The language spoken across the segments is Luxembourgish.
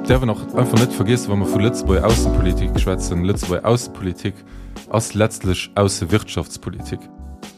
Däerf een och einfach net vergiessen, wa mer vu Lëtzebuerger Aussepolitik schwätzen, Lëtzebuerger Aussepolitik ass letztlech Aussewirtschaftspolitik.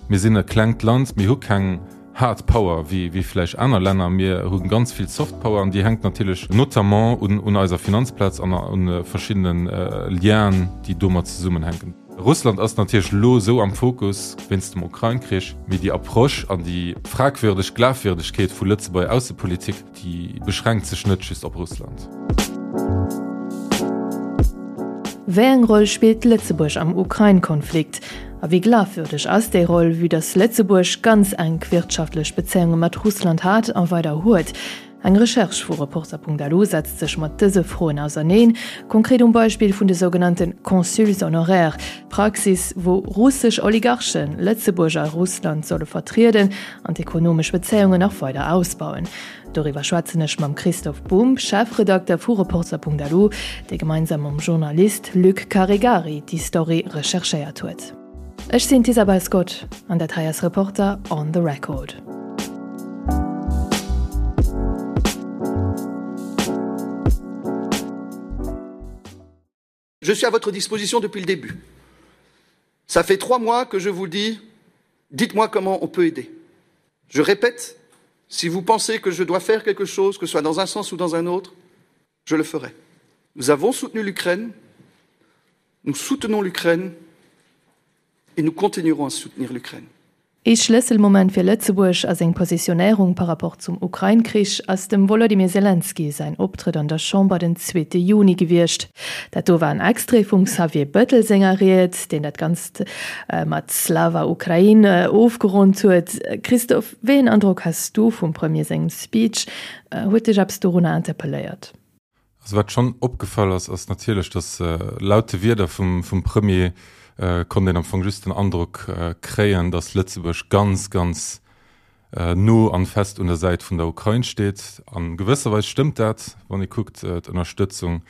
Mir sinn e klengt Land, mir hu keng Hard Power wéi vläicht aner Länner, mir hu ganz vill Soft Power an déi hänkt natierlech notamment un eiser Finanzplaz an u verschiddene Lienen, déi domat zesummenhänken. Russland ass natierlech elo esou am Fokus wéinst dem Ukrain-Krich, mee déi Approche an déi fragwürdeg Glafwierdegkeet vu Lëtzebuerger Aussepolitik, déi beschränkt sech net just op Russland. Wéi eng Roll spillt Lëtzebuerg am Ukrain-Konflikt? A wéi glafwürdeg ass déi Roll, vue dass Lëtzebuerg ganz enk wirtschaftlech Bezéiunge mat Russland hat a weider huet? Eng Recherche vu Reporter.lu setzt sech mat dëse Froen auserneen, konkret um Beispill vun de sougenannte Consuls honoraires, Praxis, wou russesch Oligarchen Lëtzebuerg a Russland solle vertrieden an d'ekonomesch Bezéiungen nach weider ausbauen. Doriwwer schwätzen ech mam Christoph Bumb, Chefredakter vu Reporter.lu, dee gemeinsam mam Journalist Luc Caregari déi Story recherchéiert huet. Ech sinn d'Isabel Scott an dat hei ass Reporter on the Record. Je suis à votre disposition depuis le début. Ça fait trois mois que je vous dis dites-moi comment on peut aider. Je répète, si vous pensez que je dois faire quelque chose, que ce soit dans un sens ou dans un autre, je le ferai. Nous avons soutenu l'Ukraine, nous soutenons l'Ukraine et nous continuerons à soutenir l'Ukraine. Ee Schlësselmoment fir Lëtzebuerg a seng Positionéierung par rapport zum Ukrain-Krich ass dem Wolodymyr Selenskyj säin Optrëtt an der Chamber den zweete Juni gewiescht. Dat do war en Extrait vum Xavier Bettel senger Ried, deen dat Ganzt mat Slava Ukraine ofgeronnt huet. Christophe, wéi een Androck has du vum Premier sengem Speech? Huet dech eppes dorunner interpelléiert? Also wat schonn opgefall ass, ass natierlech, datt laut de Wierder vum Premier konnt een am Fong just den Androck kréien, datt Lëtzebuerg ganz, ganz no an fest un der Säit vun der Ukrain steet. A gewësser Weis stëmmt dat, wann ee kuckt d'Ënnerstëtzung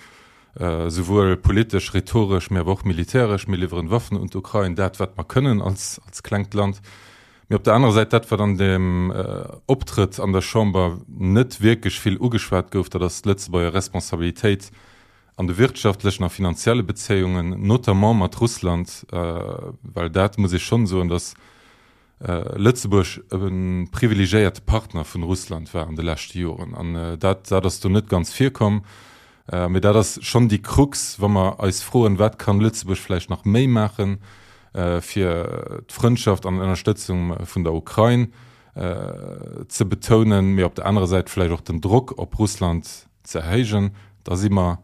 souwuel politesch, rhetoresch, mee awer och militäresch. Mir liwweren Waffen un d'Ukrain, dat wat mer kënnen als klengt Land. Mee op der anerer Säit, dat wat an deem Optrëtt an der Chamber net wierklech vill ugeschwat gouf, dat ass d'Lëtzebuerger Responsabilitéit an de wirtschaftlechen a finanzielle Bezéiungen, notamment mat Russland, well dat muss ee schonn soen, datt Lëtzebuerg e privilegiéierte Partner vun Russland war an de leschte Joren. An dat dat ass do net ganz virkomm. Mee dat ass schonn déi Krux, wa mer eis froen, wat kann Lëtzebuerg vläicht nach méi maachen, fir d'Frëndschaft an Ënnerstëtzung vun der Ukrain ze betounen, mee op der anerer Säit vläicht och den Drock op Russland ze erhéijen, da si mer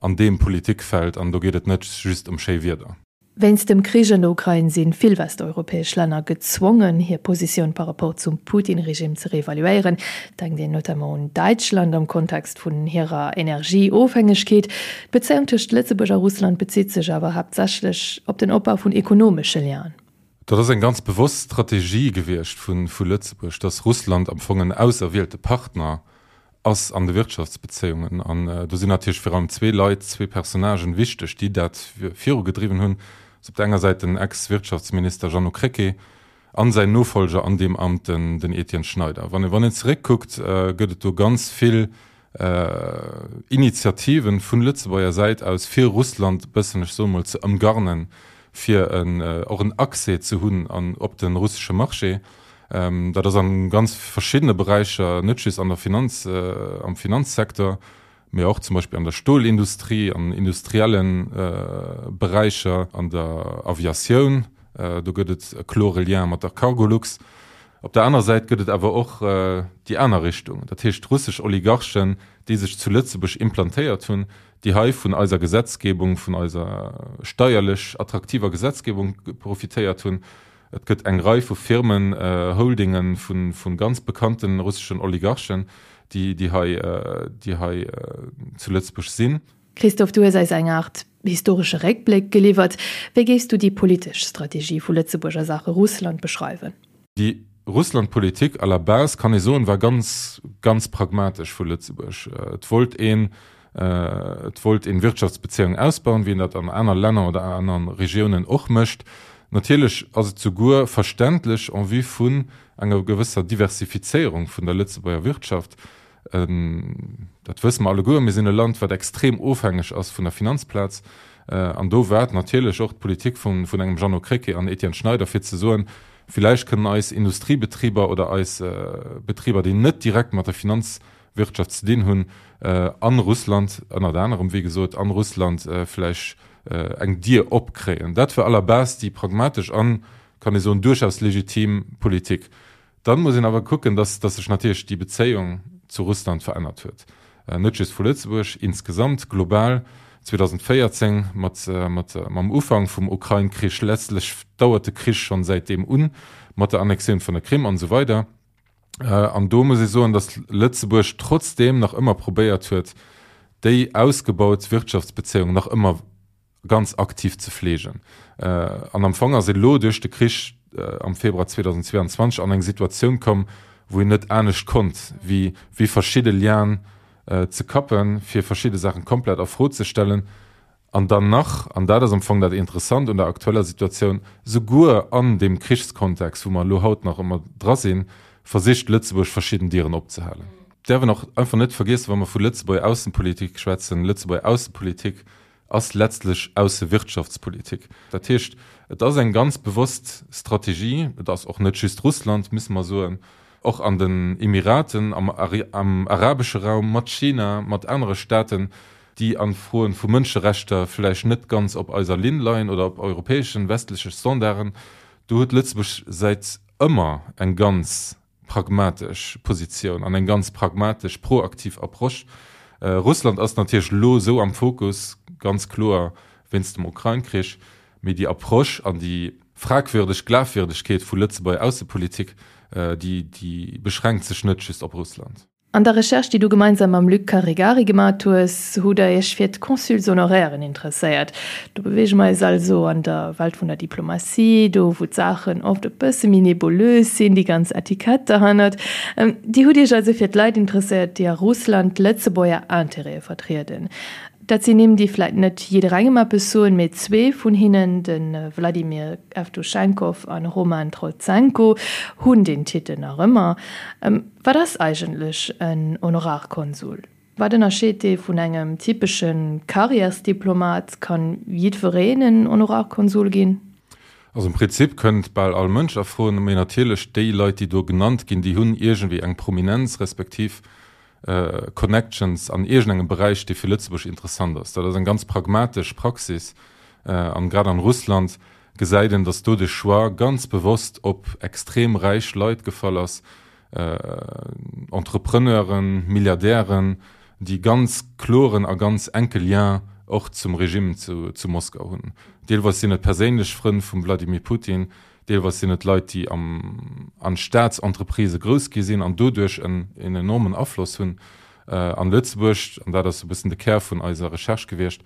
an deem Politikfeld an do geet et net just ëm schéi Wierder. Wéinst dem Krich an der Ukrain si vill westeuropäesch Länner gezwongen, hir Positioun par rapport zum Putin-Regime ze reevaluéieren. Denkt een notamment un Däitschland am Kontext vun hirer Energieofhängegkeet. D'Bezéiung tëscht Lëtzebuerg a Russland bezitt sech awer haaptsächlech op den Opbau vun ekonomesche Lienen. Dat ass eng ganz bewosst Strategie gewiescht vu Lëtzebuerg, datt Russland am Fong en auserwielte Partner ass an de Wirtschaftsbezéiungen. An do sinn natierlech virun allem zwee Leit, zwee Personnagen wichteg, déi dat virugedriwwen hunn. Dat ass op der enger Säit den Ex-Wirtschaftsminister Jeannot Krecké an säin Nofolger an deem Amt, den Etienne Schneider. Wann een zeréckkuckt, gëtt et do ganz vill Initiativen vun Lëtzebuerger Säit aus, fir Russland e bëssen, ech soe mol, ze ëmgarnen, fir och en Accès ze hunn an op de russesche Marché. Dat ass a ganz verschiddene Beräicher, net just an der Finanz, am Finanzsecteur, mee och zum Beispill an der Stolindustrie, an industrielle Beräicher, an der Aviatioun. Do gëtt et e klore Lien mat der Cargolux. Op der anerer Säit gëtt et awer och déi aner Richtung, dat heescht russesch Oligarchen, déi sech zu Lëtzebuerg implantéiert hunn, déi hei vun eiser Gesetzgebung, vun eiser steierlech attraktiver Gesetzgebung profitéiert hunn. Et gëtt eng Rei vu Firmen, Holdinge vu ganz bekannte russeschen Oligarchen, déi hei, déi hei zu Lëtzebuerg sinn. Christophe, du hues eis eng Aart historesche Réckbléck geliwwert. Wéi géifs du déi politesch Strategie vu Lëtzebuerg a Saache Russland beschreiwen? Déi Russlandpolitik à la base, kann ee soen, war ganz, ganz pragmatesch vu Lëtzebuerg. Et wollt een, et wollt een Wirtschaftsbezéiungen ausbauen, wéi een dat an aner Länner oder aner Regiounen och mécht. Natierlech ass et souguer verständlech en vue vun enger gewësser Diversifizéierung vun der Lëtzebuerger Wirtschaft. Dat wësse mer alleguer, mir sinn e Land, wat extrem ofhängeg ass vun der Finanzplaz. An do war et natierlech och d'Politik vun engem Jeannot Krecké an Etienne Schneider, fir ze soen, Villäicht kënnen eis Industriebetriber oder eis Betriber, déi net direkt mat der Finanzwirtschaft ze dinn hunn, a Russland, ënnert anerem, wéi gesot, a Russland vläicht eng Dier opkréien. Dat war à la base déi pragmatesch an, kann ee soen, duerchaus legitim Politik. Dann muss een awer kucken, dass dass sech natierlech déi Bezéiung zu Russland verännert huet, net just vu Lëtzebuerg, insgesamt global. 2014 mat mat mam Ufank vum Ukrain-Krich, letztlech dauert de Krich schonn säitdeem un, mat der Annexioun vun der Krim an esou weider. An do muss ee soen, dass Lëtzebuerg trotzdeem nach ëmmer probéiert huet, déi ausgebaut Wirtschaftsbezéiung nach ëmmer ganz aktiv ze fleegen. An am Fong ass een elo duerch de Krich am Februar 2022 an eng Situatioun komm, wou een net anescht konnt, wéi wéi verschidde Lienen ze kappen, fir verschidde Saachen komplett a Fro ze stellen. An dann nach, an dat ass am Fong dat Interessant un der aktueller Situatioun, souguer an deem Krichskontext, wou mer elo haut nach ëmmer dra sinn, versicht Lëtzebuerg verschidden Dieren opzehalen. Däerf een och einfach net vergiessen, wa mer vu Lëtzebuerger Aussenpolitik schwätzen, Lëtzebuerger Aussenpolitik ass letztlech Aussewirtschaftspolitik. Dat heescht, et ass eng ganz bewosst Strategie, et ass och net just Russland, musse mer soen, och an den Emiraten, am am arabesche Raum, mat China, mat anere Staaten, déi a Froen vu Mënscherechter vläicht net ganz op eiser Linn leien oder op europäeschen, westleche Standarden. Do huet Lëtzebuerg säit ëmmer eng ganz pragmatesch Positioun an eng ganz pragmatesch, proaktiv Approche. Russland ass natierlech elo esou am Fokus, ganz kloer wéinst dem Ukrain-Krich, mee déi Approche an déi fragwürdeg Glafwierdegkeet vu Lëtzebuerger Aussepolitik, déi déi beschränkt sech net just op Russland. An der Recherche, déi du gemeinsam mam Luc Caregari gemat hues, hutt der iech fir d'Consuls honorairen interesséiert. Do beweege mer eis also an der Welt vun der Diplomatie, do wou d'Saachen oft e bësse méi nebulös sinn, déi ganz Etikett derhannert. Dir hutt iech also fir d'Leit interesséiert, déi a Russland d'Lëtzebuerger Intérêtë vertrieden. Dat sinn Nimm, déi vläit net jidderengem eppes soen, mee zwee vun hinnen, de Wladimir Evtuschenkov an Roman Trotsenko, hunn deen Titel nach ëmmer. Wat ass eigentlech en Honorarkonsul? Wat ënnerscheet dee vun engem typesche Karriärsdiplomat? Kann jiddwereen en Honorarkonsul ginn? Also am Prinzip kënnt bal all Mënsch a Fro, mee natierlech déi Leit, déi do genannt ginn, déi hunn iergendwéi eng Prominenz respektiv Connections an iergendengem Beräich, dee fir Lëtzebuerg interessant ass. Dat ass eng ganz pragmatesch Praxis an grad an Russland gesäit een, datt do de Choix ganz bewosst op extrem räich Leit gefall ass, Entrepreneuren, Milliardären, déi ganz kloren a ganz enke Lien och zum Regime zu Moskau hunn. Deelweis sinn et perséinlech Frënn vum Vladimir Putin, Deelweis sinn et Leit, déi am an Staatsentreprisë grouss gi sinn an doduerch en en enormen Afloss hunn. An Lëtzebuerg, an dat ass e bëssen de Kär vun eiser Recherche gewiescht,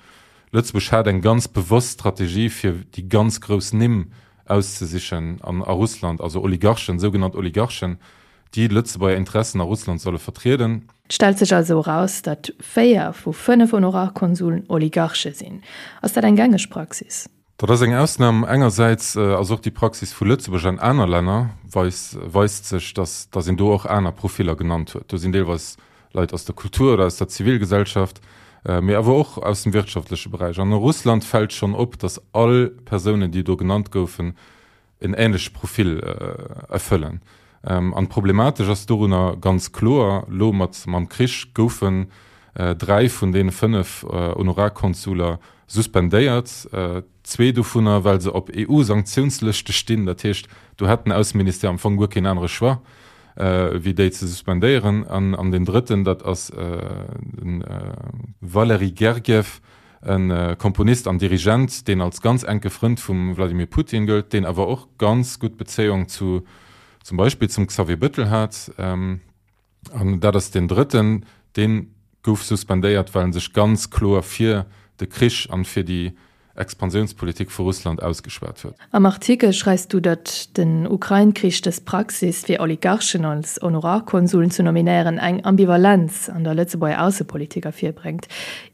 Lëtzebuerg hat eng ganz bewosst Strategie fir déi ganz grouss Nimm auszesichen an a Russland, also Oligarchen, sougenannt Oligarchen, déi Lëtzebuerger Interessen a Russland solle vertrieden. Et stellt sech also eraus, datt 4 vu 5 Honorarkonsuln Oligarche sinn. Ass dat eng gängeg Praxis? Dat ass eng Ausnam. Engersäits ass och déi Praxis vu Lëtzebuerg an aner Länner weist weist sech, datt datt een do och aner Profiller genannt huet. Do sinn deelweis Leit aus der Kultur oder aus der Zivilgesellschaft, mee awer och aus dem wirtschaftleche Beräich. An a Russland fält schonn op, datt all Persounen, déi do genannt goufen, en ähnleche Profil erfëllen. An problematesch ass dorunner ganz kloer, elo mat mam Krich goufen 3 vun deene 5 Honorarkonsuler suspendéiert, zwee dovunner well se op EU-Sanktiounslëschte stinn. Dat heescht, do hätt den Ausseministère am Fong guer keen anere Choix, wéi déi ze suspendéieren. An deen drëtten, dat ass de Valery Gergiev, E Komponist an Dirigent, deen als ganz enke Frënd vum Wladimir Putin gëllt, deen awer och ganz gutt Bezéiung zu zum Beispill zum Xavier Bëttel hat. An dat ass deen drëtten, dee gouf suspendéiert, well en sech ganz kloer fir de Krich an fir déi Expansiounspolitik vu Russland ausgeschwat huet. Am Artikel schreifs du, datt den Ukrain-Krich dës Praxis, fir Oligarchen als Honorarkonsuln ze nominéieren, eng Ambivalenz an der Lëtzebuerger Aussepolitik ervirbréngt.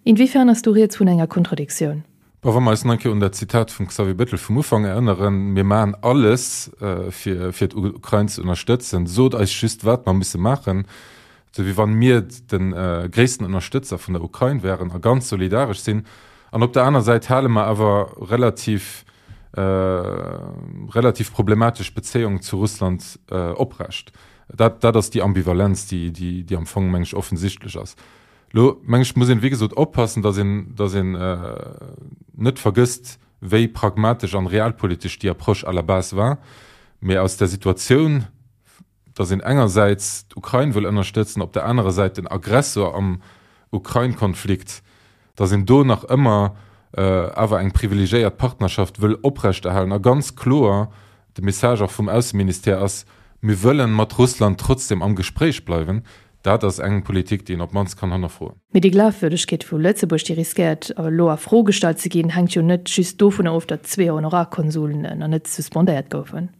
Inwiefern ass do rieds vun enger Kontradiktioun? Bon, wa mer eis nach eng Kéier un dat Zitat vum Xavier Bettel vum Ufank erënneren, Mir maachen alles, fir, fir d'Ukrain ze ënnerstëtzen, sot eis just, wat mer musse maachen. Esou wéi wann mir de gréissten Ënnerstëtzer vun der Ukrain wären a ganz solidaresch sinn. An op der aner Säit hale mer awer relativ, relativ problematesch Bezéiungen zu Russland oprecht. Dat, dat ass déi Ambivalenz, déi, déi, déi am Fong, meng ech, offensichtlech ass. Elo, meng ech, muss een, wéi gesot, oppassen, datt een, datt een net vergësst, wéi pragmatesch an realpolitesch déi Approche à la base war. Mee aus der Situatioun, datt een engersäits d'Ukrain wëll ënnerstëtzen, op der anerer Säit den Aggressor am Ukrain-Konflikt, datt een do nach ëmmer awer eng privilegiéiert Partnerschaft wëll oprechterhalen a ganz kloer de Message och vum Ausseministère ass, Mir wëllen mat Russland trotzdem am Gespréich bleiwen. Dat ass eng Politik, déi een op d'mannst kann hannerfroen. Mee déi Glafwürdegkeet vu Lëtzebuerg, déi riskéiert elo a Fro gestallt ze ginn, hänkt jo net just dovunner of, datt zwee Honorarkonsuln nach net suspendéiert goufen.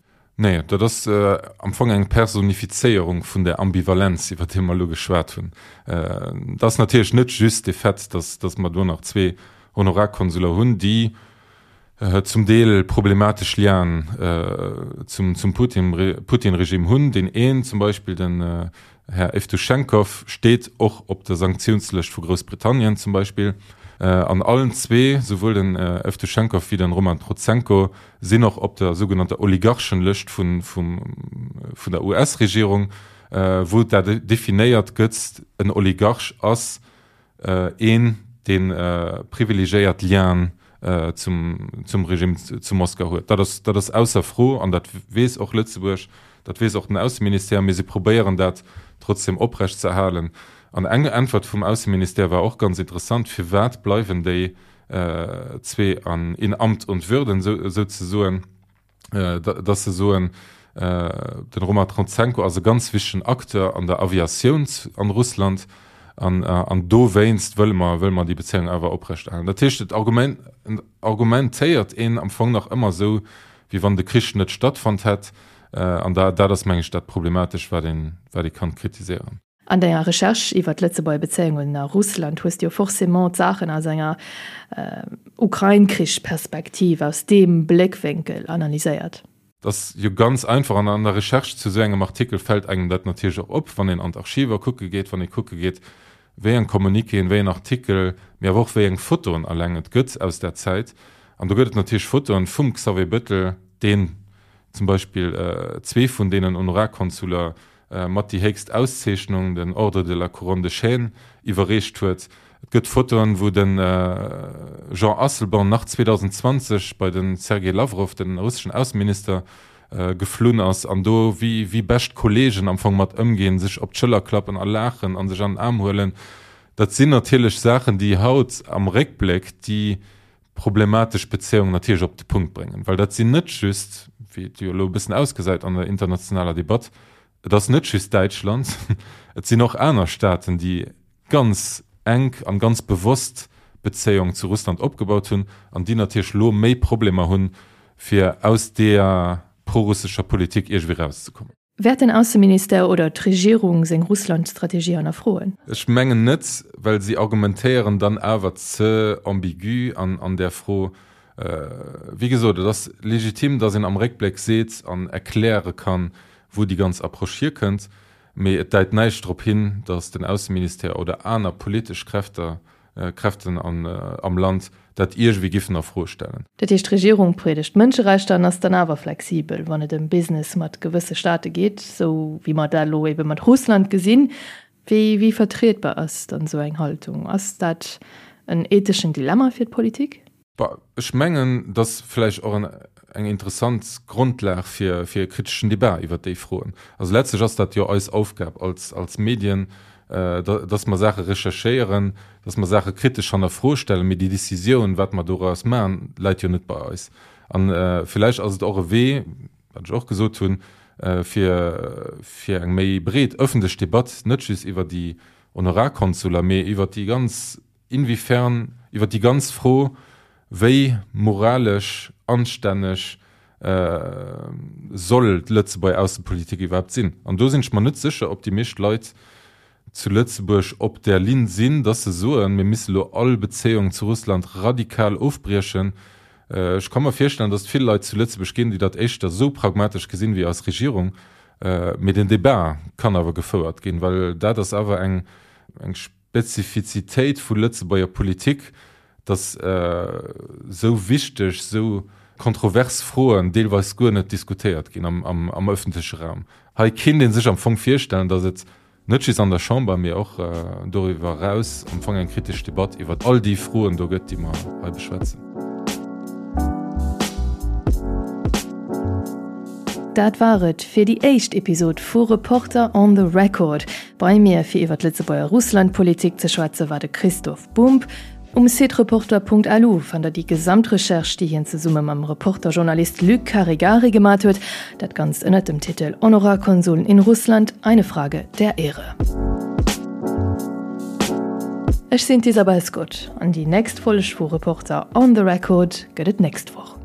Nee, dat ass am Fong eng Personifizéierung vun där Ambivalenz, iwwer déi mer elo geschwat hunn. Et ass natierlech net just de Fait, datt mer do nach zwee Honorarkonsuler hunn, déi zum Deel problematesch Lienen zum Putin-Regime hunn. Deen een zum Beispill, den Här Evtuschenkov, steet och op der Sanktiounslëscht vu Groussbritannien zum Beispill. An allen zwee, souwuel den Evtuschenkov wéi den Roman Protsenko, sinn och op der sougenannter Oligarchenlëscht vun vun der US-Regierung, wou dat definéiert gëtt, en Oligarch ass een, dee privilegiéiert Lienen zum Regime zu Moskau huet. Dat ass, dat ass ausser Fro an dat weess och Lëtzebuerg, dat weess och den Ausseministère, mee si probéieren dat trotzdem oprecht ze erhalen. An eng Äntwert vum Ausseministère war och ganz interessant, Firwat bleiwen déi zwee an in Amt und Würden souzesoen? dass se soen, den Roman Trotsenko ass e ganz wichtegen Acteur an der Aviatioun an Russland an an dowéinst wëlle mer wëlle mer déi Bezéiung awer oprechterhalen. Dat heescht, et argumentéiert een am Fong nach ëmmer esou, wéi wann de Krich net stattfonnt hätt an dat ass, meng ech, dat Problematesch, wat een wat ee kann kritiséieren. An denger Recherche iwwer d'Lëtzebuerger Bezéiungen a Russland hues de jo forcément d'Saachen aus enger Ukrain-Krich-Perspektiv, aus deem Bléckwénkel analyséiert. Dat ass jo ganz einfach an an der Recherche zu esou engem Artikel fält engem dat natierlech och op, wann een an d'Archiver kucke geet, wann ee kucke geet, wéi eng Communiquéen, wéi en Artikel, mee awer och wéi eng Fotoen alleng et gëtt aus där Zäit. An do gëtt et natierlech Fotoen vum Xavier Bettel, deen zum Beispill zwee vun deenen Honorarkonsuler mat déi héchst Auszeechnung, den Ordre de la Couronne de Chêne, iwwerreecht huet. Et gëtt Fotoen, wou de Jean Asselborn nach 2020 bei de Sergei Lawrow, den russeschen Ausseminister, geflunn ass an do wéi wéi bescht Kolleegen am Fong mat ëmginn, sech op d'Schëller klappen a laachen a sech an den Aarm huelen. Dat sinn natierlech Saachen, déi haut am Réckbléck déi problematesch Bezéiung natierlech op de Punkt bréngen, well dat sinn net just, wéi et jo elo e bëssen ausgesäit an der internationaler Debatt, et ass net just Däitschland, et sinn och aner Staaten, déi ganz enk an ganz bewosst Bezéiung zu Russland opgebaut hunn an déi natierlech elo méi Problemer hunn, fir aus deeër prorussescher Politik iergendwéi erauszekommen. Wäert den Ausseministère oder d'Regierung seng Russland-Strategie hannerfroen? Ech mengen net, well si argumentéieren dann awer ze ambigu an där Fro. Wéi gesot, et ass legitim, datt een am Réckbléck seet an erkläre kann, wou déi ganz Approche hierkënnt, mee et deit näischt drop hin, datt den Ausseministère oder aner politesch Kräfter Kräften am Land dat iergendwéi giffen a Fro stellen. Dat heescht, d'Regierung priedegt d'Mënscherechter an ass dann awer flexibel, wann et ëm Business mat gewësse Staate geet, esou wéi mer dat elo ebe mat Russland gesinn. Wéi wéi vertrietbar ass dann esou eng Haltung? Ass dat en etheschen Dilemma fir d'Politik? Bah, ech mengen, et ass vläicht och eng interessant Grondlag fir e kriteschen Debat iwwert déi Froen. Also letztlech ass dat jo eis Aufgab als, als Medien, dass mer Saache recherchéieren, dass mer Saache kritesch hannerfro stellen, mee déi Décisioun, wat mer doraus maachen, läit jo net bei eis. A vläicht ass et och e Wee, wat ech och gesot hunn, fir, fir eng méi breet ëffentlech Debatt, net just iwwer déi Honorarkonsuler, mee iwwert déi ganz Inwiefern iwwer déi ganz Fro, wéi moralesch anstänneg soll d'Lëtzebuerger Aussepolitik iwwerhaapt sinn? An do sinn ech mer net sécher, ob déi meescht Leit zu Lëtzebuerg op där Linn sinn, dass se soen, mir misse lo all Bezéiung zu Russland radikal ofbriechen. Ech ka mer virstellen, dass et vill Leit zu Lëtzebuerg ginn, déi dat éischter esou pragmatesch gesinn wéi eis Regierung. Mee den Debat kann awer gefouert ginn, well dat ass awer eng Spezifizitéit vu Lëtzebuerger Politik, datt esou wichteg, esou kontrovers Froen deelweis guer net diskutéiert ginn am ëffentleche Raum. Hei kéint ee sech am Fong virstellen, datt et Net just an der Chamber, mee och doriwwer eraus am Fong eng kritesch Debatt iwwer all déi Froen do gëtt, déi mer hei beschwätzen. Dat war et fir déi éischt Episod vu Reporter on the Record. Bei mir fir iwwer d'Lëtzebuerger Russlandpolitik ze schwätze war de Christoph Bumb. Um Site reporter.lu fannt der déi gesamt Recherche, déi hien zesumme mam Reporter-Journalist Luc Caregari gemat huet. Dat Ganzt ënnert dem Titel Honorarkonsuln in Russland, eine Frage der Ehre. Ech sinn d'Isabel Scott an déi nächst Folg vu Reporter on the Record gëtt et nächst Woch.